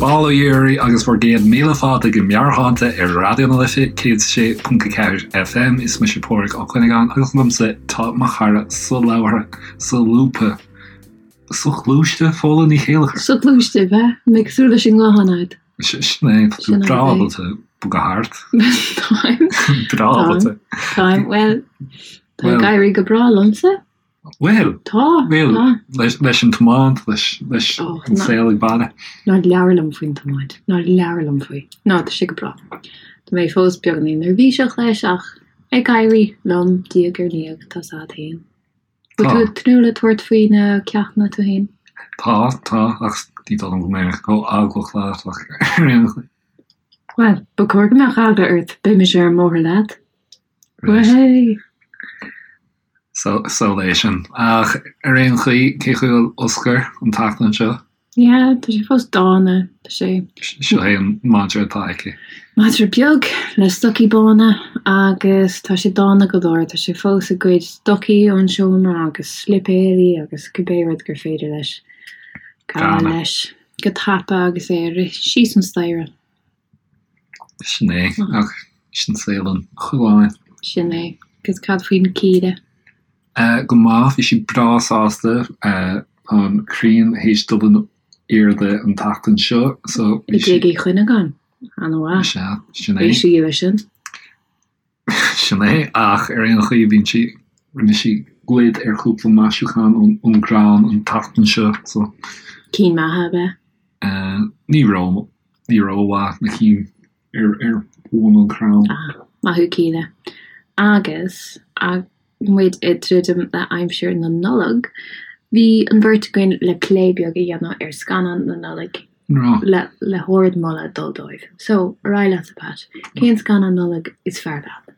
Bail ó Dhia oraibh agus bhur gcéad míle fáilte go Meabhairshláinte ar Raidió na Life 106.4 FM. Is mise Pádraig Ó Cuinneagáin agus liomsa tá mo chara solabhartha, solúbtha, soghluaiste, Fódhla Ní Chéilleachair. Soghluaiste, bheith mé cosúil leis an nguthán agat. Sin é, tá tú breá ábalta bogadh thart. Táim. Breá ábalta. Táim, bhuel, tá ag éirí go breá liomsa. Bhuel, Tá, bhuel, tá. leis, leis an tiomáint, leis, leis Oh, an ná- saol ag baile. Ná labhair liom faoin tiomáint. Ná labhair liom faoi. Ná, tá sé go breá. Tá mé fós beagáinín neirbhíseach leis ach ag éirí liom diaidh ar ndiaidh, tá 's a'd féin. Bhfuil Tá. tú ag tnúth le tabhairt faoi na ceachtanna tú féin? Tá, tá, ach ní dóigh liom go mbeidh mé chomh eaglach leat ach ar aon chaoi. Bhuel, ba chóir go mbeadh eagla ort, beidh mise ar an mbóthar leat. Right. Way! So, so é sin. Ach ar aon chaoi, cén chaoi a bhfuil Oscar an tseachtain seo? Yeah, tá sé fós dána, tá sé. Seo é an madra atá aici. Madra beag le stocaí bána agus tá sé dána go leor, tá sé fós ag goid stocaí ón seomra agus slipéirí agus cibé rud gur féidir leis gabháil leis go tapa agus é ag rith síos an staighre. Sin é, ach sin saol an choileáin. Sin é. Agus cad faoin Kíla? Go maith, bhí sí breá sásta. Tá an ghrian théis dul in airde an tseachtain seo so I bhí sí. dTigh Uí Chuinneagáin. An-mhaith. Sea, sin é. Bhí sí leis sin. Sin é, ach ar aon chaoi bíonn sí, rinne sí goid ar chúpla maisiúchán ón gcrann an tseachtain seo so. Cinn maithe ab ea? Ní ró, ní rómhaith na cinn ar ar bhun an chrainn. Ah, maith thú Kíla. Agus muid ag druidim le aimsir na Nollag, bhí an bheirt againn le plé beag a dhéanamh ar scannáin na Nollag le le hardmholadh dul dóibh. So, ar aghaidh leatsa Pat, cén scannán Nollag is fearr leat?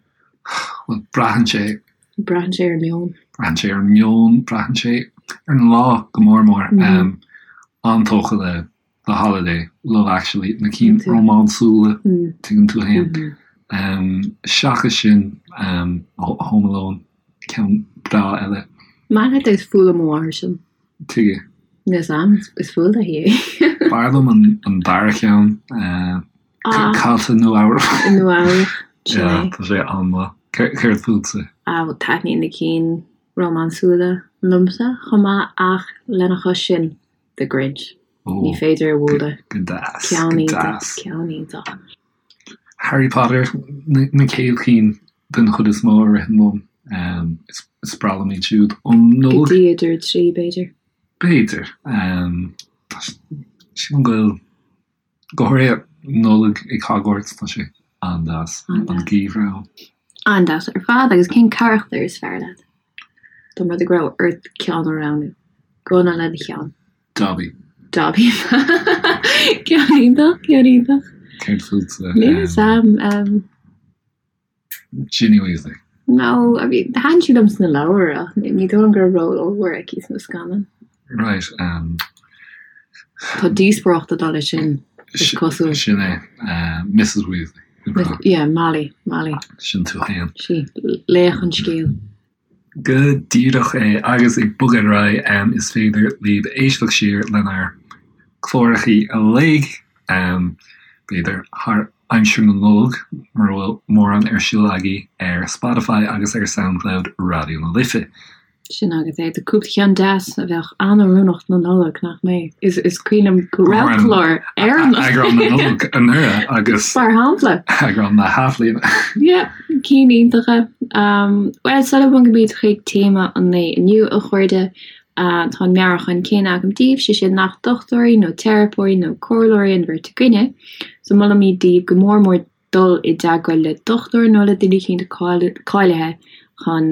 Bhuel, braitheann sé. Braitheann sé ar an meon. Braitheann sé ar an meon, braitheann sé ar an lá go mór mór. An-tógtha le The Holiday, Love Actually, na cinn rómánsúla, tuigeann tú féin. Seachas sin, Home Alone, ceann breá eile. Maith leat is fuath le mo mháthair sin. Tuige? Níl 's a'm, is fuath léi é. B'fhearr liom an dara ceann, Caillte i Nua-Eabhrac. I Nua-Eabhrac, sin é. Tá sé an-mhaith. Céard fútsa? Ah, taitníonn na cinn rómánsúla liomsa chomh maith ach lena chois sin, The Grinch. Ní féidir a bhualadh. Go deas, Ceann go iontach, deas. ceann iontach. Harry Potter, na chéad chinn den chuid is mó a ritheann liom. Is breá liom iad siúd. Um Go Nollaig? dtí uimhir 3, b'fhéidir. B'fhéidir. Sílim go bhfuil, go háirithe Nollaig ag Hogwarts, tá sé an-deas, an geimhreadh ann. An-deas ar fad. Agus cén carachtar is fearr leat? Dá mba rud é go raibh ort ceann a roghnú. Gunna le do cheann. Dobby. Dobby. Ceann iontach, ceann iontach. Céard fútsa? Níl 'fhios a'm. Ginny Weasley. No, I mean, thaitin sí liom sna leabhair ach ní dóigh liom go raibh ról ollmhór aici sna scannáin. Right, um. Tá díospóireacht ag dul leis sin, is cosúil. Sin é, Mrs Weasley. Yeah, Molly, Molly. Sin tú féin. Sí, laoch an scéil. Go díreach é, agus ag bogadh ar aghaidh, is féidir libh éisteacht siar lenár gclárachaí uilig, b'fhéidir thar aimsir na Nollag, mura bhfuil mórán ar siúl agaibh, ar Spotify agus ar Soundcloud Raidió na Life. Sin agat é. Tá cúpla ceann deas a bheadh an-oiriúnach don Nollaig, nach mbeadh? Is cuimhin liom go raibh clár ar an Eagrán na Nollag anuraidh agus. Mar shampla. Eagrán na hAthbhliana. Yeah, cinn iontacha. Bhuel, sula mbogaimid chuig téama an lae inniu, a chairde, tá an meabhrúchán céanna agam daoibh, sé sin nach dochtúirí nó teiripeoirí nó comhairleoirí an bheirt againne, so molaimid daoibh go mór mór dul i dteagmháil le dochtúir nó le duine eicínt cáilithe chun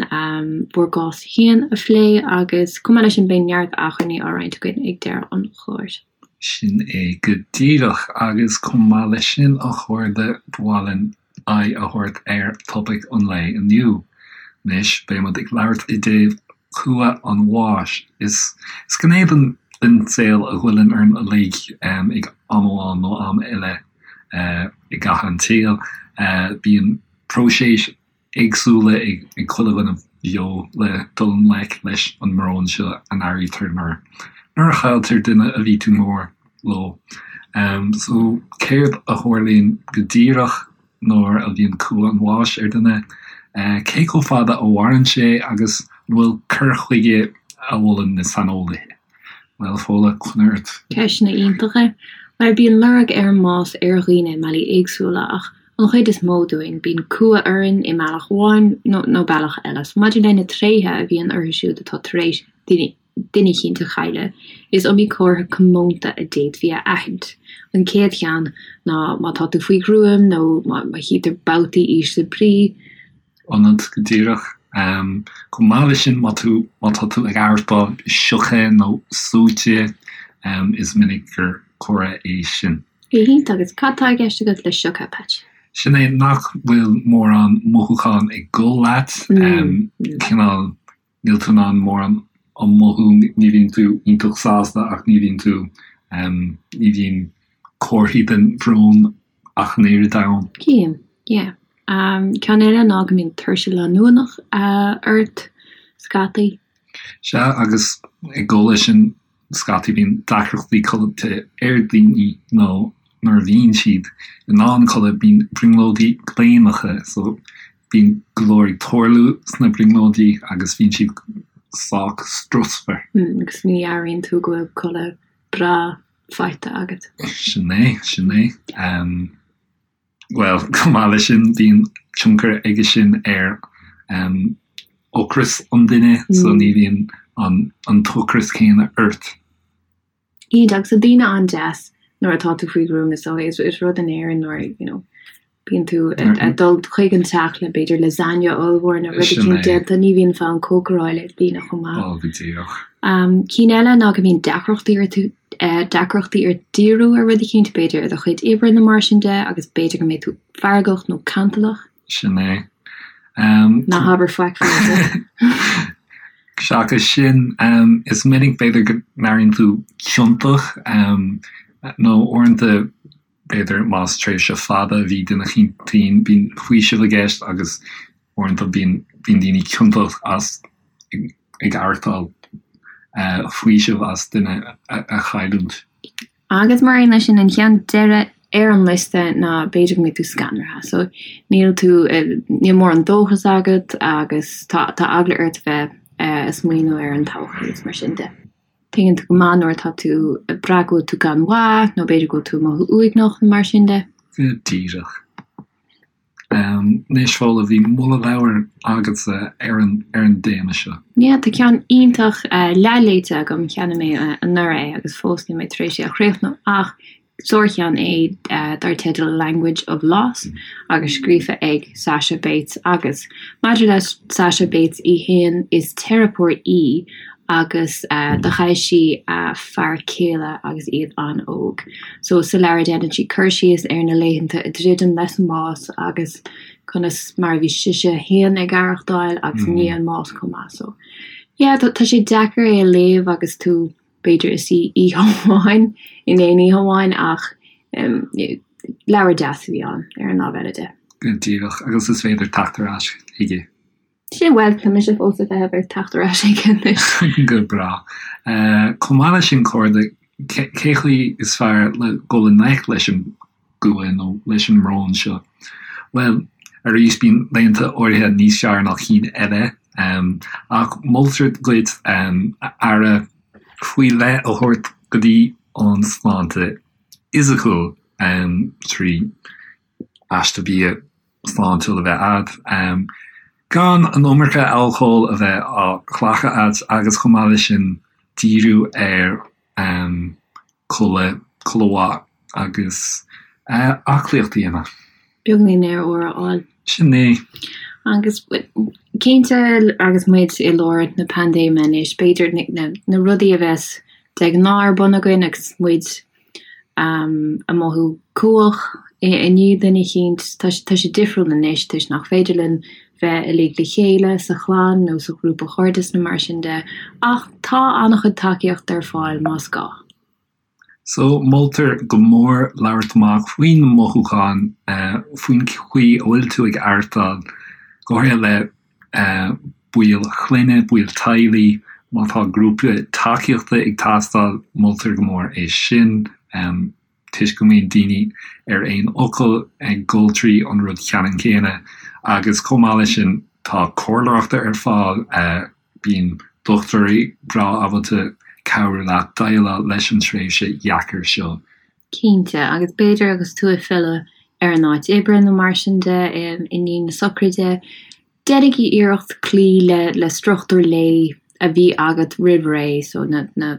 bhur gcás féin a phlé agus chomh maith leis sin beidh neart acmhainní á roinnt againn ag deireadh an chláir. Sin é go díreach agus chomh maith leis sin a chairde ba mhaith linn aghaidh a thabhairt ar topaic an lae inniu. Anois beidh muid ag labhairt i dtaobh cumha an bháis. Is gné den saol a ghoilleann orainn uilig ag am amháin nó am eile. i gcaitheamh an tsaoil. Bíonn próiseas éagsúla ag chuile dhuine bheo le dul i ngleic leis an mbrón seo a n-airítear nuair a chailltear duine a bhí tú mór. leo. So, céard a tharlaíonn go díreach nuair a bhíonn cumha an bháis ar dhuine? Cé chomh fada a mhaireann sé agus an bhfuil cur chuige a mholann na saineolaithe? Bhuel, Fódhla, coinnigh ort. Ceisteanna iontacha. Bhuel, bíonn lorg ar an mbás ar dhaoine i mbealaí éagsúla ach an chuid is mó dúinn, bíonn cumha orainn i mbealach amháin nó bealach eile. So maidir le na tréithe a bhíonn orthu siúd atá tar éis duine eicínt a chailleadh, is iomaí comhartha comónta a d'fhéadfaí a aithint. An chéad cheann ná má tá tú faoi ghruaim nó má chítear babhtaí ísle brí, ionat go díreach. Chomh maith leis sin, má tú, má tá tú ag aireachtáil sioctha nó suaite, is minic gur comhartha é sin. Go hiontach. Agus cad tá i gceist agat le sioctha, Patch? Sin é nach bhfuil mórán mothúchán ag dul leat, cineál níl tú in ann mórán a mhothú, ní bhíonn tú iontach sásta ach ní bhíonn tú, ní bhíonn comharthaí den bhrón ach an oiread ann. Cím, yeah. Ceann eile ná go mbíonn tuirse leanúnach ort scaití. Sea, agus ag dul leis sin, scaití bíonn deacrachtaí codlata ar daoine nó nuair a bhíonn siad in ann codladh bíonn brionglóidí gléineacha so bíonn go leor ag tarlú sna brionglóidí agus bíonn siad sách strusmhar. Agus ní airíonn tú go bhfuil codladh breá faighte agat. Sin é, sin é. Bhuel, chomh maith leis sin, bíonn tionchar aige sin ar ocras an duine, so ní bhíonn an t-ocras céanna ort. Iontach, agus tá daoine an-deas nuair atá tú faoi ghruaim is dóigh. Is rud in Éirinn nuair, you know, bíonn tú ag dul chuig an teach le b'fhéidir lasagne ollmhór nó rud eicínt déanta, ní bhíonn fonn cócaráil ar daoine chomh maith. Ó, go díreach. Cinn eile ná go mbíonn deacrachtaí ort deacrachtaí ort díriú ar rud eicínt, b'fhéidir i do chuid oibre nó mar sin de, agus b'fhéidir go mbeidh tú feargach nó cantalach. Sin é. Ná habair faic faoi. Seachas sin, is minic b'fhéidir go n-airíonn tú ciontach, nó uaireanta b'fhéidir más tréimhse fada a bhí duine eicínt tinn, bíonn faoiseamh i gceist agus uaireanta bíonn daoine ciontach as ag aireachtáil faoiseamh as duine a chailliúint. Agus mar aon leis sin, an ceann deiridh ar an liosta ná b'fhéidir go mbeidh tú scanraithe. So níl tú, níl mórán dóchas agat agus tá tá eagla ort bheith ag smaoineamh ar an todhchaí agus mar sin de. Tuigeann tú go maith nuair atá tú ag brath go bhfuil tú gan mhaith nó b'fhéidir go bhfuil tú ag mothú uaigneach nó mar sin de. Go díreach. Anois, Fódhla, bhí moladh leabhair agatsa ar an ar an dtéama seo. Yeah, tá ceann iontach leathléite agam, cheannaigh mé anuraidh é agus fós níl mé tar éis é a chríochnú ach sárcheann é dar teideal Language of Loss agus scríofa ag Sasha Bates agus maidir le Sasha Bates í féin is teiripeoir í agus do chaill sí a fear céile agus iad an-óg. So sa leabhar déanann sí cur síos ar na laethanta ag druidim leis an mbás agus conas mar a bhí sise féin ag aireachtáil agus i ndiaidh an mbás chomh maith. So yeah tá tá sé deacair é a léamh agus tú b'fhéidir ag suí oíche amháin in aon oíche amháin ach leabhar deas a bhí ann ar an lámh eile de. Go díreach agus is féidir teacht ar ais chuige. Sin, bhuel, tá mise fós ag feitheamh ar teacht ar ais chuige anois. Go breá. Chomh maith leis sin, a chairde, cé chaoi is fearr le dul i ngleic leis an gcumha nó leis an mbrón seo? Bhuel, arís, bíonn laethanta áirithe níos fearr ná cinn eile, ach moltar duit aire faoi leith a thabhairt go dtí an sláinte fhisiciúil trí aiste bia sláintiúil a bheith agat, gan an iomarca alcóil a bheith á ghlacadh agat agus chomh maith leis sin díriú ar codladh, codladh mhaith agus aclaíocht a dhéanamh. Beagáinín aer úr a fháil. Sin é. Agus cinnte agus muid i lár na paindéime anois, b'fhéidir na rudaí a bheas de ghnáth ar bun againn agus muid ag mothú cumhach i ndiaidh duine eicínt. Tá sé difriúil anois toisc nach féidir linn bheith uilig le chéile sa chlann nó sa ghrúpa chairdis nó mar sin de, ach tá an-chuid tacaíochta ar fáil más gá. So, moltar go mór labhairt amach faoi na mothúcháin, faoin chaoi a bhfuil tú ag aireachtáil, go háirithe le baill clainne, baill teaghlaigh, má tá grúpa tacaíochta ag teastáil, moltar go mór é sin. Toisc go mbíonn daoine ar aon fhocal ag dul trí an rud ceannann céanna agus chomh maith leis sin tá comhairleoireacht ar fáil, bíonn dochtúirí breá ábalta cabhrú leat déileáil leis an tréimhse dheacair seo. Cinnte, agus b'fhéidir agus tú ag filleadh ar an áit oibre nó mar sin de i ndiaidh na sochraide, déanaigí iarracht cloí le le struchtúr lae a bhí agat roimh ré, so na na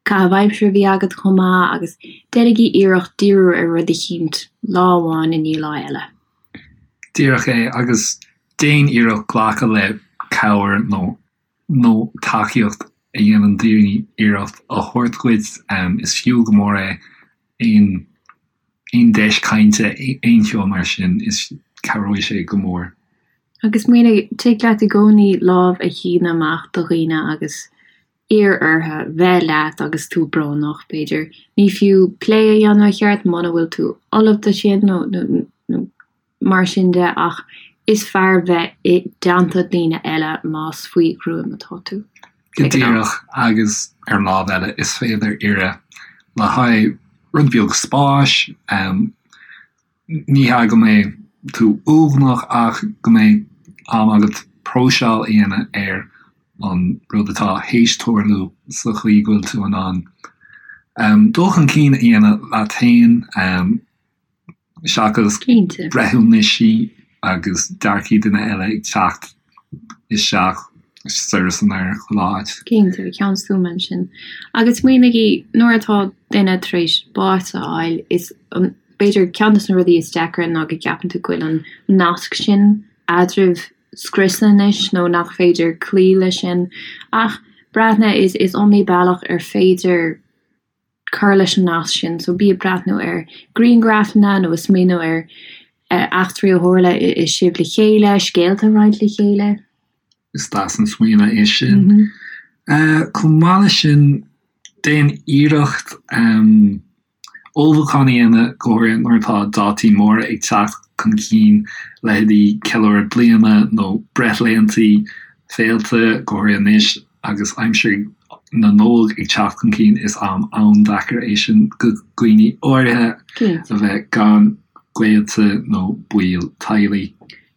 caitheamh aimsire a bhí agat chomh maith agus déanaigí iarracht díriú ar rud eicínt lá amháin i ndiaidh lá eile. Díreach é, agus déan iarracht glacadh le cabhair nó nó tacaíocht a dhéanann daoine iarracht a thabhairt dhuit. Is fiú go mór é aon aon deis cainte, aon cheo mar sin, is cabhróidh sé go mór. Agus smaoinigh, tig leat i gcónaí lámh a shíneadh amach do dhaoine agus iarr orthu bheith leat agus tú brónach, b'fhéidir. Ní fiú plé a dhéanamh i cheart muna bhfuil tú ullamh do sin nó nó mar sin de ach is fearr bheith i dteannta daoine eile más faoi ghruaim atá tú. Go díreach, agus ar an lámh eile is féidir iarraidh le haghaidh rud beag spáis, ní hea go mbeidh tú uaigneach ach go mbeidh am agat próiseáil a dhéanamh ar an rud atá théis tarlú sa chaoi go bhfuil tú in ann dul chun cinn a dhéanamh leat féin. seachas breithiúnaisí agus dearcaí duine eile ag teacht isteach soir is anoir chuile áit. Cinnte, ceann stuama ansin. Agus smaoinigí, nuair atá duine tar éis bás a fháil, is b'fhéidir ceann de na rudaí is deacra ná go gceapann tú go bhfuil an nasc sin eadraibh scriosta anois nó nach féidir cloí leis sin. Ach breathnaigh, is iomaí bealach ar féidir cur leis an nasc sin. So bí ag breathnú ar grianghrafanna nó ag smaoineamh ar eachtraí a tharla sibh le chéile, scéalta a roinnt le chéile. Is deas an smaoineamh é sin. Chomh maith leis sin, déan iarracht ullmhúchán a dhéanamh, go háirithe nuair atá dátaí móra ag teacht chun cinn, leithéidí ceiliúradh bliana nó breithlaethanta, féilte, go háirithe anois. Agus aimsir na Nollag ag teacht chun cinn, is am an-deacair é sin do dhaoine áirithe a bheith gan gaolta nó baill teaghlaigh.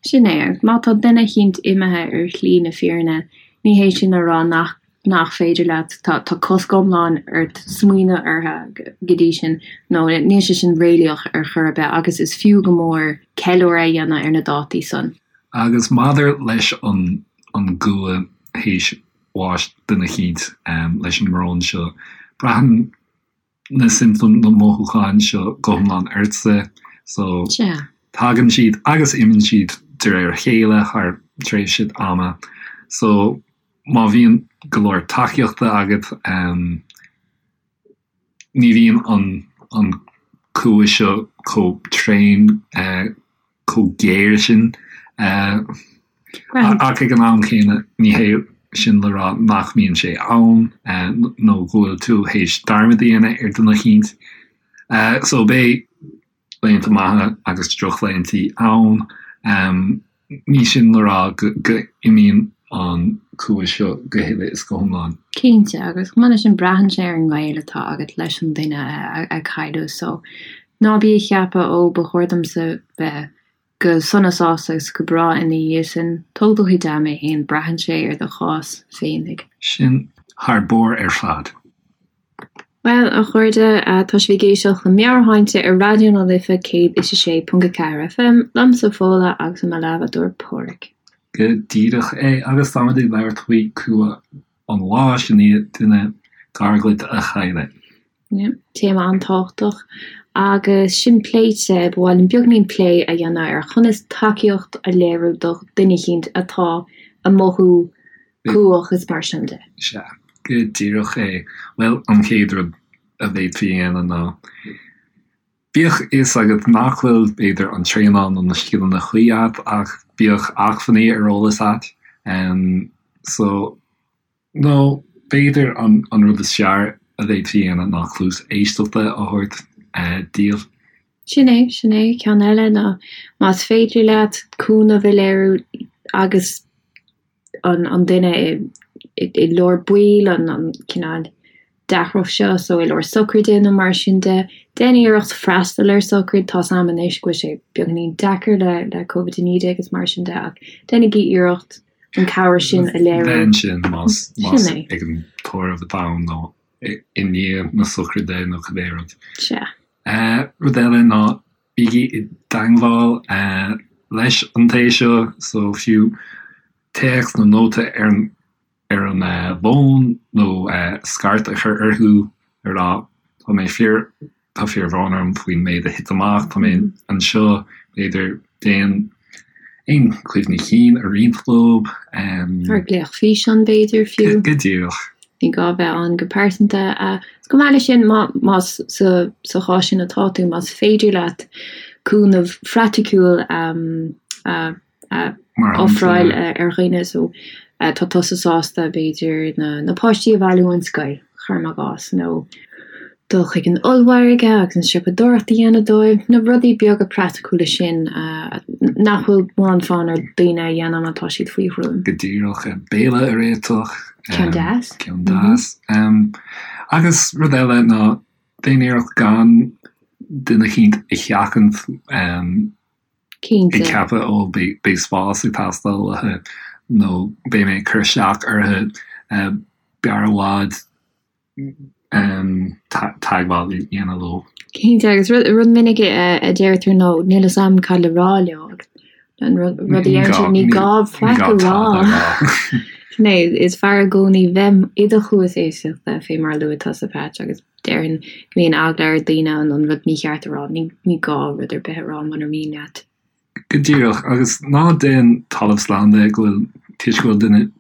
Sin é, agus má tá duine eicínt imithe ar shlí na fírinne, ní hé sin a rá nach nach féidir leat, tá tá cosc iomlán ort smaoineamh orthu go dtí sin, nó níl sé sin réalaíoch ar chor ar bith, agus is fiú go mór ceiliúradh a dhéanamh ar na dátaí san. Agus maidir leis an an gcumha théis bháis duine eicínt leis an mbrón seo. Braitheann na siomptóim, na mothúcháin seo go hiomlán ortsa so tagann siad agus imíonn siad de réir a chéile thar tréimhse ama. So má bhíonn go leor tacaíochta agat, Ní bhíonn an cumha seo chomh tréan, chomh géar sin. Ach ag an am céanna, ní hé sin le rá nach mbíonn sé ann nó go bhfuil tú théis dearmad a dhéanamh ar dhuine eicínt. So beidh laethanta maithe agus drochlaethanta ann. Ní sin le rá go n-imíonn an cumha seo go huile is go hiomlán. Cinnte, agus chomh maith leis sin braitheann sé ar an ngaol atá agat leis an duine a cailleadh so ná bí ag ceapadh ó ba chóir domsa bheith go sona sásta agus go breá ina dhiaidh sin. Tóg do chuid ama fhéin, braitheann sé ar do chás féinig. Sin thar barr ar fad. Bhuel, a chairde, tá sibh ag éisteacht le Meabhairshláinte ar Raidió na Life 106.4 FM, liomsa Fódhla agus i mo leathbhádóir Páraic. Go díreach é, agus táimid ag labhairt faoi cumha an bháis i ndiaidh duine gar dhuit a chailleadh. Yeah, téama an-tábhachtach. Agus sin pléite, ba mhaith linn beagainín plé a dhéanamh ar chonas tacaíocht a léiriú do dhuine eicínt atá ag mothú cumhach is mar sin de. Sea, go díreach é. Bhuel, an chéad rud a bhféadfaí a dhéanamh ná, bíodh fhios agat nach bhfuil, b'fhéidir, an traenáil nó na scileanna cuí agat, ach bíodh acmhainní ar eolas agat. So, nó b'fhéidir an rud is fearr a bhféadfaí a dhéanamh ná cluas éisteachta a thabhairt díobh. Sin é, sin é. Ceann eile ná más féidir leat cúnamh a léiriú agus an duine i lár baill, an cineál. deacracht seo, so i lár socraide nó mar sin de, déan iarracht freastal ar socraid, tá's a'm anois go bhfuil sé beagáinín deacair le le Covid-19 agus mar sin de ach déanaigí iarracht an cabhair sin a léiriú. Bheith ansin más más ag an tórramh atá ann nó i ndiaidh na socraide nó cibé rud. Sea. Rud eile ná bígí i dteangmháil leis an té seo, so fiú téacs nó nóta ar an ar an bhfón nó scairt a chur orthu a rá tá mé fíor, tá fíorbhrón orm faoin méid a thit amach, tá mé anseo, b'fhéidir déan aon chuimhní cinn a roinnt leo. Ar glaoch físeáin b'fhéidir fiú. Go díreach. Ní gá bheith ann go pearsanta. Is chomh maith leis sin, más sa chás sin atá tú, más féidir leat cúnamh phraiticiúil a a ofráil ar dhaoine so tá tusa sásta b'fhéidir na páistí a bhailiú ón scoil, cuirim i gcás, nó dul chuig an ollmhargadh agus an siopadóireacht a dhéanamh dóibh, na rudaí beaga praiticiúla sin nach bhfuil mórán fonn ar daoine a dhéanamh má tá siad faoi ghruaim. Go díreach, béile a réiteach. Ceann deas. Ceann deas. Agus rud eile ná déan iarracht gan duine eicínt a sheachaint. Cinnte. Ag ceapadh, ó, beidh spás ag teastáil uathu nó beidh mé ag cur isteach orthu, b'fhearr i bhfad teagmháil a dhéanamh leo. Cinnte, agus rud minic a deirtear ná níl fhios a'm cad le rá leo agus an rud a deireann siad ní gá faic a rá. Sin é, is fearr i gcónaí bheith i do chluas éisteachta fé mar a luaigh tusa Patch agus Déarfainn go mbíonn eagla ar daoine an rud mícheart a rá. Ní gá rud ar bith a rá munar mian leat. Go díreach, agus ná déan talamh slán de go bhfuil, toisc go bhfuil duine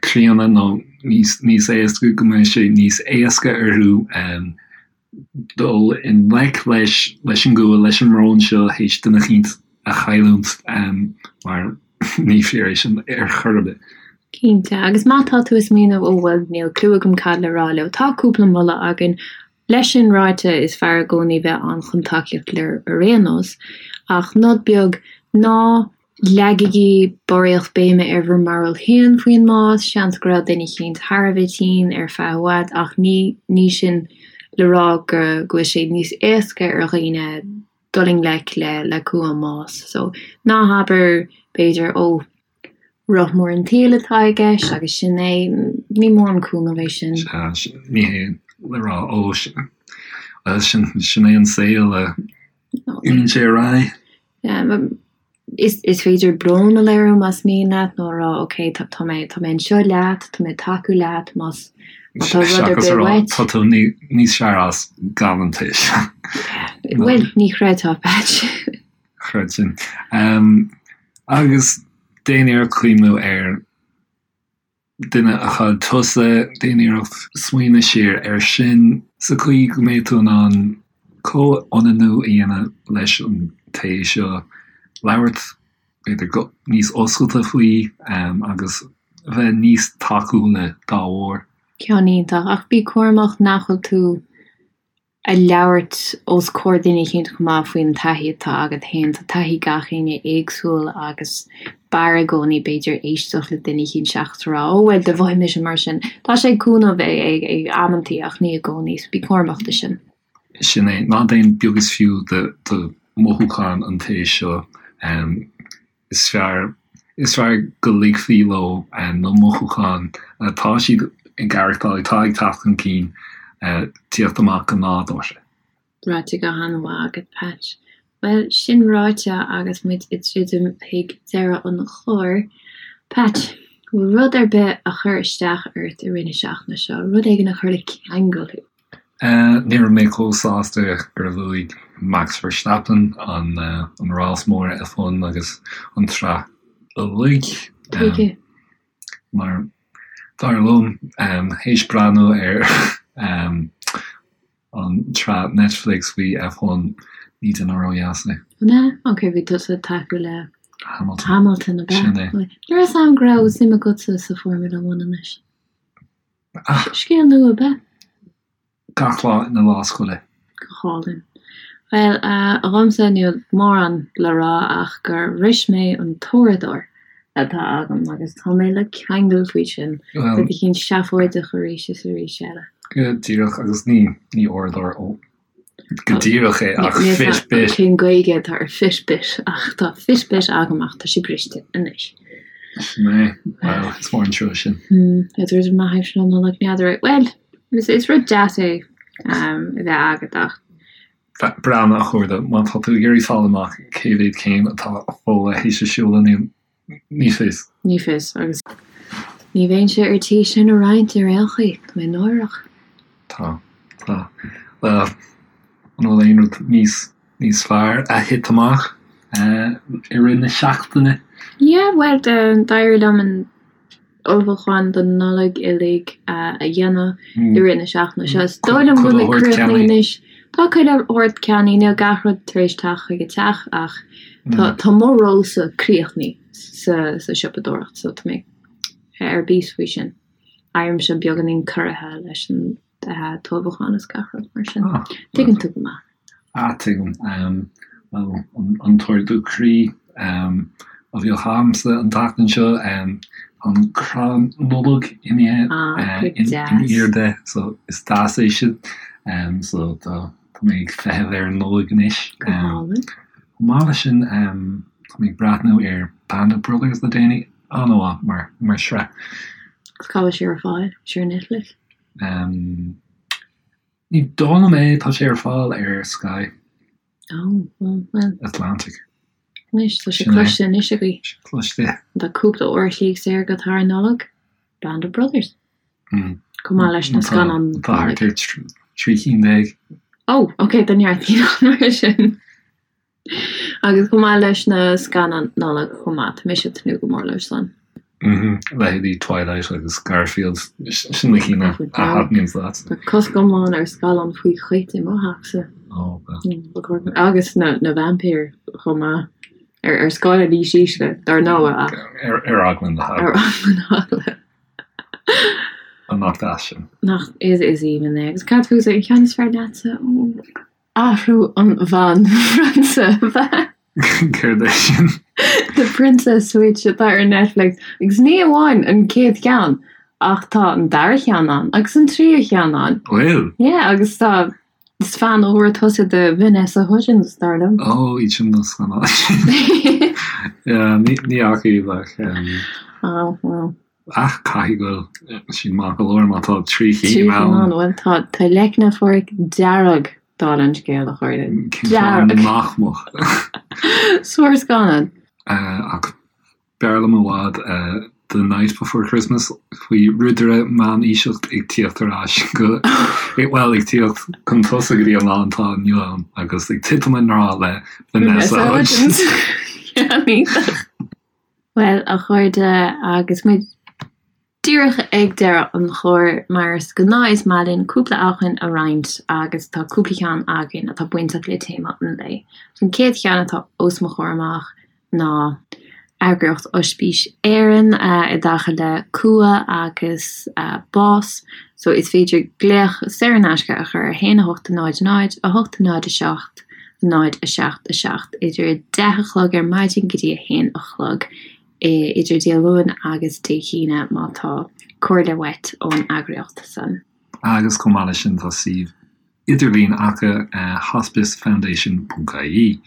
críonna nó níos níos aosta go mbeidh sé níos éasca orthu dul i ngleic leis leis an gcumha, leis an mbrón seo théis duine eicínt a chailliúint mar ní fíor é sin ar chor ar bith. Cinnte, agus má tá tú ag smaoineamh ó bhuel níl clue agam cad le rá leo, tá cúpla moladh againn. Leis sin ráite, is fearr i gcónaí bheith ann chun tacaíocht a léiriú ar aon nós, ach nod beag, ná leagaigí barraíocht béime ar bhur mbarúil féin faoin mbás, seans go raibh duine eicínt thar a bheith tinn ar feadh i bhfad ach ní ní sin le rá go bhfuil sé níos éasca ar dhaoine dul i ngleic le le cumha an mbás. So, ná habair, b'fhéidir, ó, roth mór an tsaoil atá i gceist agus sin é, ní mórán cúnamh é sin. Sea, ní hé le rá, ó, bhuel, sin, sin é an saol, imíonn sé ar aghaidh. Yeah, Is is féidir brón a léiriú más mian leat nó a rá ok tá tá mé tá mé anseo leat, tá mé ag tacú leat más má tá rud ar Seachas a bith rá uait. tá tú níos fearr as gan an té seo. Bhuel, ní chreidfeá, Patch. Chreidfinn. Agus déan iarracht cuimhniú ar duine a chaill tusa, déan iarracht smaoineamh siar air sin sa chaoi go mbeidh tú in ann comhionannú a dhéanamh leis an té seo, labhairt b'fhéidir go níos oscailte faoi agus bheith níos tacúla dá bharr. Ceann iontach, ach bí cúramach nach bhfuil tú a labhairt os comhair duine eicínt chomh maith faoin taithí atá agat féin. Tá taithí gach éinne éagsúil agus b'fhearr i gcónaí b'fhéidir éisteacht le duine eicínt seachas a rá 'Ó bhuel do mhothaigh mise mar sin'. Tá sé ag cúnamh ag ag amantaí ach ní i gcónaí so bí cúramach de sin. Sin é, ná déan beag is fiú de de mhothúcháin an té seo. Is fearr is fearr go ligfí leo na mothúcháin atá siad ag aireachtáil, atá ag teacht chun cinn, tíocht amach go nádúrtha. Ráite go han-mhaith agat, Patch. Bhuel, sin ráite agus muid ag druidim chuig deireadh an chláir, Patch, bhfuil rud ar bith a chuir isteach ort i rith na seachtaine seo, rud éigin a chuir le ceangal thú? Ní raibh mé chomh sásta gur bhuaigh Max Verstappen an rás mór F1 agus an tsraith uilig. Tuige? Mar, dar liom, théis breathnú ar an tsraith Netflix faoi F1, ní duine ródheas é. An ea? Ok, bhí tusa ag tacú le Hamilton. Hamilton, ab ea? Sin é. Ní raibh fhios a'm go raibh suim agatsa sa Formula One anois. Scéal nua ab ea? Gach lá ina lá scoile. Go hálainn. Bhuel, dhomsa níl mórán le rá ach gur bhris mé an tóireadóir atá agam agus tá mé le ceangal faoi sin. Rud eicínt seafóideach arís is arís eile. Go díreach, agus ní ní uaireadóir ó go díreach é ach Fitbit. Cén Gaeilge atá ar Fitbit ach tá Fitbit agam ach tá sé briste anois. Sin é. Bhuel, is mór an trua sin. Is rud maith é sin an Nollaig n'fheadar é. Bhuel, is rud deas é a bheith agat ach. Breathnaigh, a chairde, má tá tú ag iarraidh fáil amach cé mhéad céim atá Fódhla théis a siúl inniu, Ní fios. Ní fios, agus ní bheinnse ar tí sin a roinnt ar aon chaoi, tá mé náireach. Tá, tá. Bhuel, an bhfuil aon rud níos, níos fearr a thit amach i rith na seachtaine? Yeah, bhuel, d'éirigh liom an ullmhúchán don Nollaig uilig a dhéanamh i rith na seachtaine seo. Is dóigh liom go bhfuil mé críochnaithe anois. Tá chuile shórt ceannaithe, níl gach rud tar éis teacht chuig an teach ach tá mo rólsa críochnaithe sa sa siopadóireacht so tá mé ar bís faoi sin. Éirímse beagáinín corraithe leis an t-ullmhúchán is gach rud mar sin. Tuigeann tú go maith. Ah, tuigim. Bhuel, an t-ardú croí a bhíodh a'msa an tseachtain seo, an crann Nollag imithe in airde, so is deas é sin. So tá mé ag feitheamh ar an Nollaig anois. Go hálainn. Chomh maith leis sin, tá mé ag breathnú ar Band of Brothers le déanaí, an-mhaith mar shraith. Agus cá bhfuil sé ar fáil? Sé ar Netflix? Ní dóigh liom é, tá sé ar fáil ar Sky. Oh, well, well. Atlantic. Anois, tá sé cloiste anois agaibh. Sé cloiste. Tá cúpla uair a chloig saor agat thar an Nollaig, Band of Brothers. Chomh maith leis na scannáin. Tá thart ar 13 cinn. Oh, ok, tá neart cinn ann mar sin. Agus chomh maith leis na scannáin Nollag chomh maith, tá mise ag tnúth go mór leo san. Leithéidí Twilight agus Garfield, sin na cinn a thaitníonn leat. Tá cosc iomlán ar scannán faoi chait i mo theachsa. Agus na vaimpír chomh maith. Ar scála níos ísle, dar ndóigh, ach. Ar eagla na heagla. Ar eagla na heagla. Nach deas sin. Nach is aoibhinn é. Agus cad fútsa, an ceann is fearr leatsa? Athrú an Bhanphrionsa, ab ea? Céard é sin? The Princess Switch atá ar Netflix. Agus ní amháin an chéad cheann, ach tá an dara cheann ann, agus an tríú cheann ann. Bhfuil? Yeah, agus tá, is fan úr tusa de Vanessa Hudgens, dar liom. Ó, iad sin na scannáin sin. Yeah, ní fhaca iad ach. Oh, well. Ach caithfidh go bhfuil siad maith go leor má tá 3 cinn ann. Bhuel, tá tá leicne Pháraic dearg dála an scéil, a chairde. Dearg. Nach mbeadh. Sár-scannán. Ach b'fhearr liom i bhfad The Night Before Christmas faoi ridire meánaoiseach ag tíocht ar ais go, bhuel, ag tíocht chun tosaigh go dtí an lá atá inniu ann agus ag titim i ngrá le Vanessa Hudgens. Iontach. Bhuel, a chairde, agus muid díreach ag deireadh an chláir, mar is gnáth is maith linn cúpla acmhainn a roinnt agus tá cúpla ceann againn atá bainteach le téama an lae. An chéad cheann atá os mo chomhair amach ná eagraíocht Oispís Éireann i dtaca le cumha agus bás. So is féidir glaoch saor in aisce a chur ar 1 8 0 0 8 0 7 0 7 7 idir 10 a chlog ar maidin go dtí 1 a chlog idir Dé Luain agus Dé hAoine má tá comhairle uait ón eagraíocht san. Agus chomh maith leis sin tá suíomh idirlín acu hospicefoundation ponc ie.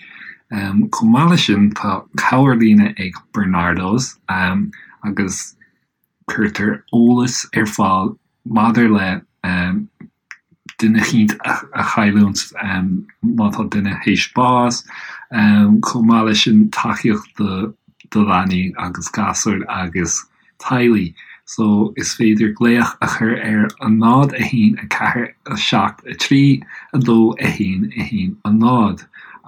Chomh maith leis sin tá cabhairlíne ag Barnardo's agus Cuirtear eolas ar fáil maidir le duine eicínt a chailliúint má tá duine théis bás, chomh maith leis sin tacaíocht do leanaí agus gasúir agus teaghlaigh. So is féidir glaoch a chur ar 0 1 4 7 3 2 1 1 0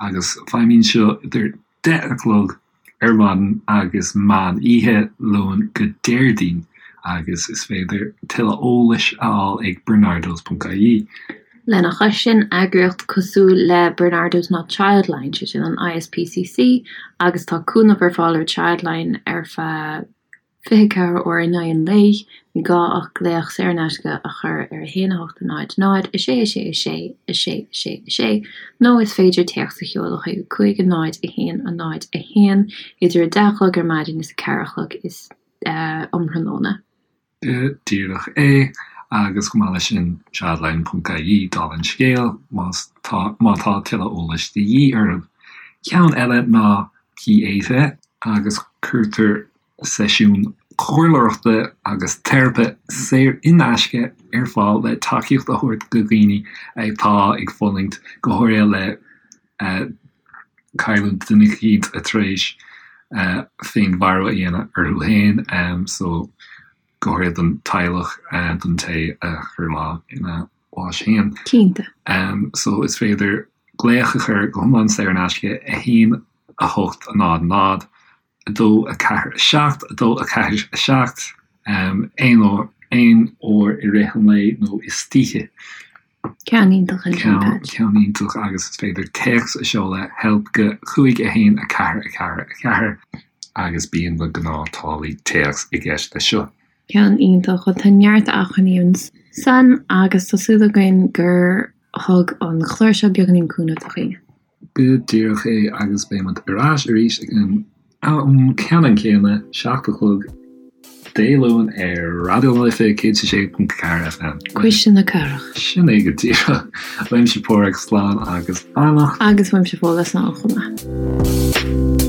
agus feidhmíonn seo idir 10 a chlog ar maidin agus meán oíche, Luan go Déardaoin, agus is féidir tuilleadh eolais a fháil ag barnardos.ie. Lena chois sin, eagraíocht cosúil le Barnardos ná Childline, sé sin an ISPCC, agus tá cúnamh ar fáil ar Childline ar feadh 24 uair in aghaidh an lae, ní gá ach glaoch saor in aisce a chur ar 1 8 0 0 6 6 6 6 6 6 nó is féidir téacs a sheoladh chuig 5 0 1 0 1 idir 10 a chlog ar maidin is 4 a chlog is um thráthnóna. Go díreach é. Agus chomh maith leis sin, childline.ie, dála an scéil, más tá, má tá tuilleadh eolais de dhíth oraibh. Ceann eile ná Pieta, agus cuirtear seisiúin chomhairleoireachta agus teiripe saor in aisce ar fáil le tacaíocht a thabhairt do dhaoine atá ag fulaingt, go háirithe le cailliúint duine eicínt atá tar éis féinmharú a dhéanamh orthu féin. So, go háirithe don teaghlach, don té a chuir lámh ina bhás féin. Cinnte. So, is féidir glaoch a chur go hiomlán saor in aisce, 1 8 0 0 2 4 7 2 4 7, aon uair, aon uair i rith an lae nó istoíche. Ceann iontach ansin, Pat. Ceann iontach agus is féidir téacs a seoladh help go 5 1 4 4 4 agus bíonn na gnáth-táillí téacs i gceist leis seo. Ceann iontach. Bhuel tá neart acmhainní ansan agus tá súil againn gur thug an clár seo beagáinín cúnamh do dhaoine. Go díreach é agus beidh muid ar ais arís ag an am ceannann céanna, 7 a chlog Dé Luain ar Raidió na Life 106.4 FM. Cuisle na Cathrach. Sin é go díreach. Uaimse Páraic, slán agus beannacht. Agus uaimse Fódhla, slán chomh maith.